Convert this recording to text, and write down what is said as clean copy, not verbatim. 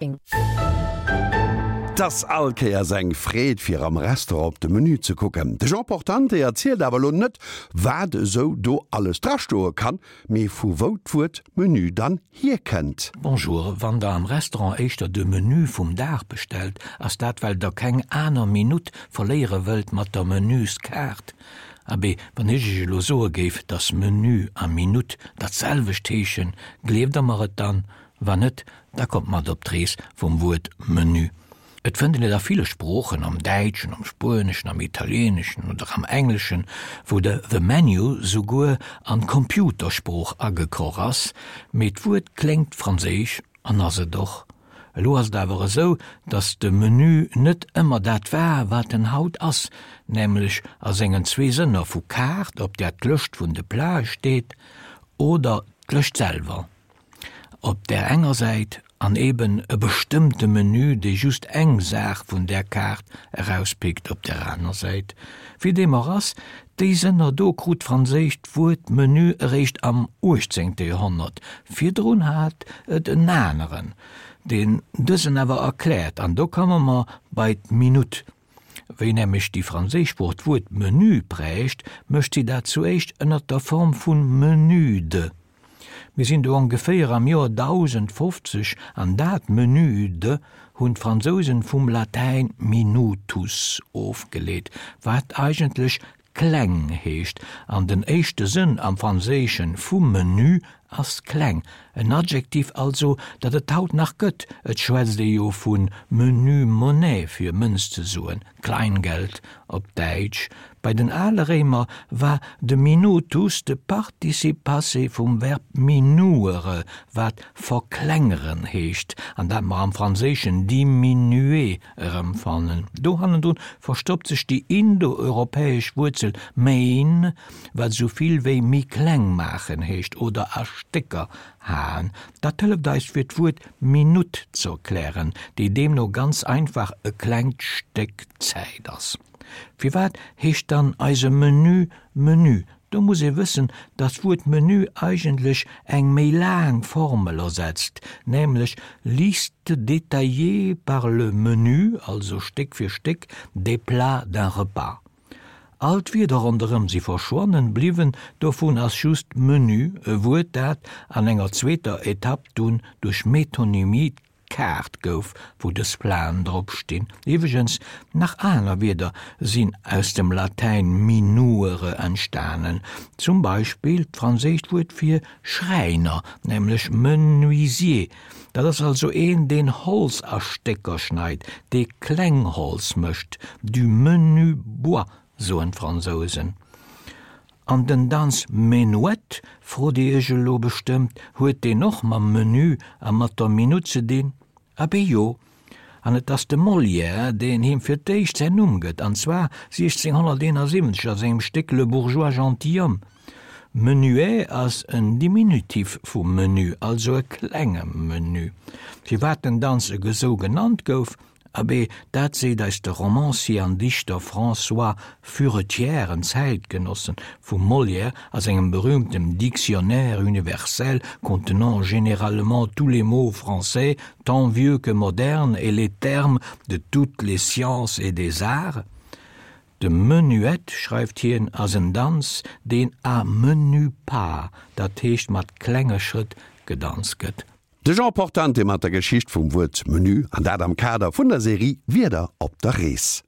't ass all Kéiers eng Freed fir am Restaurant op de Menü ze kucken. De Jean Portante erzielt awer elo net wat esou do alles drastoe kann, mee vu wou d'Wuert Menü dann hierkënnt. Bonjour, wann der am Restaurant éischter de Menü vum Dag bestellt, ass dat well der keng aner Minutt verléiere wëllt mat der Menüskaart. Abee, wann ech iech elo soe géif, dass Menü a Minutt dat selwecht heeschen, gleeft der mer et dann? Wann net, da kommt mat op d'Rees vum Wuert Menü. Et fënnt een et a ville Sproochen, am Däitschen, am Spueneschen, am Italieeneschen oder am Engleschen, wou de the menu souguer an d'Computersprooch agekroch ass, mee d'Wuert kléngt franséisch an ass et och. Elo ass et awer esou, datt de Menü net ëmmer dat war, wat en haut ass, nämlech a sengen zwee Sënner vu Kaart, op där d'Lëscht vun de Plate steet, oder d'Lëscht selwer. Op där enger Säit, an eben e bestëmmte Menü, dee just eng Saach vun där Kaart erauspickt op där aner Säit. Wéi deem och ass, déi Sënner do krut d'franséischt Wuert Menu eréischt am uechtzéngte Joerhonnert, virdrun hat et en aneren, deen dësen awer erkläert, an do komme mer bei d'Minutt. Wéi nämlech déi franséisch Sprooch d'Wuert Menu prägt, mécht si dat zuéischt ënner der Form vu Menude. Mir sinn do ongeféier am Joer 1050 an dat Menude hunn d'Fransousen vum Latäin minutus ofgeleet, wat eigentlech kleng heescht, an den éischte Sënn am Franséischen vum Menu ass kleng, en Adjektiv also, dat et haut nach gëtt, et schwätzt ee jo vu menu monnaie fir Mënz ze soen, Kleingeld op Däitsch. Bei den ale Réimer war de minutus de Participe passé vum Verb minuere, wat verklengeren heescht, an dat mer am Franséischen diminuer erëmfannen. Do hannendrun verstoppt sech déi indoeuropäesch Wuerzel mein, wat esou vill wéi méi kleng maachen heescht oder a Stécker haen. Dat hëlleft eis fir d'Wuert Minutt z'erklären, déi deemno ganz einfach e klengt Stéck Zäit ass. Firwat heescht dann eise Menü Menü? Do muss ee wëssen, dass d'Wuert Menü eigentlech eng méi laang Formel ersetzt, nämlech Liste détaillée par le menu, also Stéck fir Stéck, des plats d'un repas. All d'Wierder ronderëm si verschwonnen, bliwwen dovun ass just Menü, e Wuert dat an enger zweeter Etapp dunn duerch Metonymie d'Kaart gouf, wou dës Platen drop stinn. Iwweregens, nach aner Wierder sinn aus dem Latäin minuere entstanen, zum Beispill d'franséischt Wuert fir Schräiner, nämlech menuisier. Dat ass also een, deen Holz a Stécker schneit, dee kleng Holz mécht, du menu bois, soen d'Fransousen. An den Danz Menuett, frot Dir Iech elo bestëmmt, huet deen och mam Menu a mat der Minutt ze dinn? Abee jo, an et ass de Molière, deen him fir d'éischt säin Numm gëtt, an zwar 1671 a sengem Stéck Le Bourgeois gentilhomme. Menuet ass en Diminutif vu menu, also e klenge Menu. Firwat den Danz esou genannt gouf, Abee, dat seet eis de Romancier an Dichter François Furetière, en Zäitgenosse vum Molière, a sengem berühmtem Dictionnaire universel contenant généralement tous les mots français, tant vieux que modernes, et les termes de toutes les sciences et des arts. De Menuett, schreift hien, ass en Danz, deen à menus pas, dat heescht mat klenge Schrëtt, gedanzt gëtt. De Jean Portante mat der Geschicht vum Wuert Menü, an dat am Kader vun der Serie Wierder op der Rees.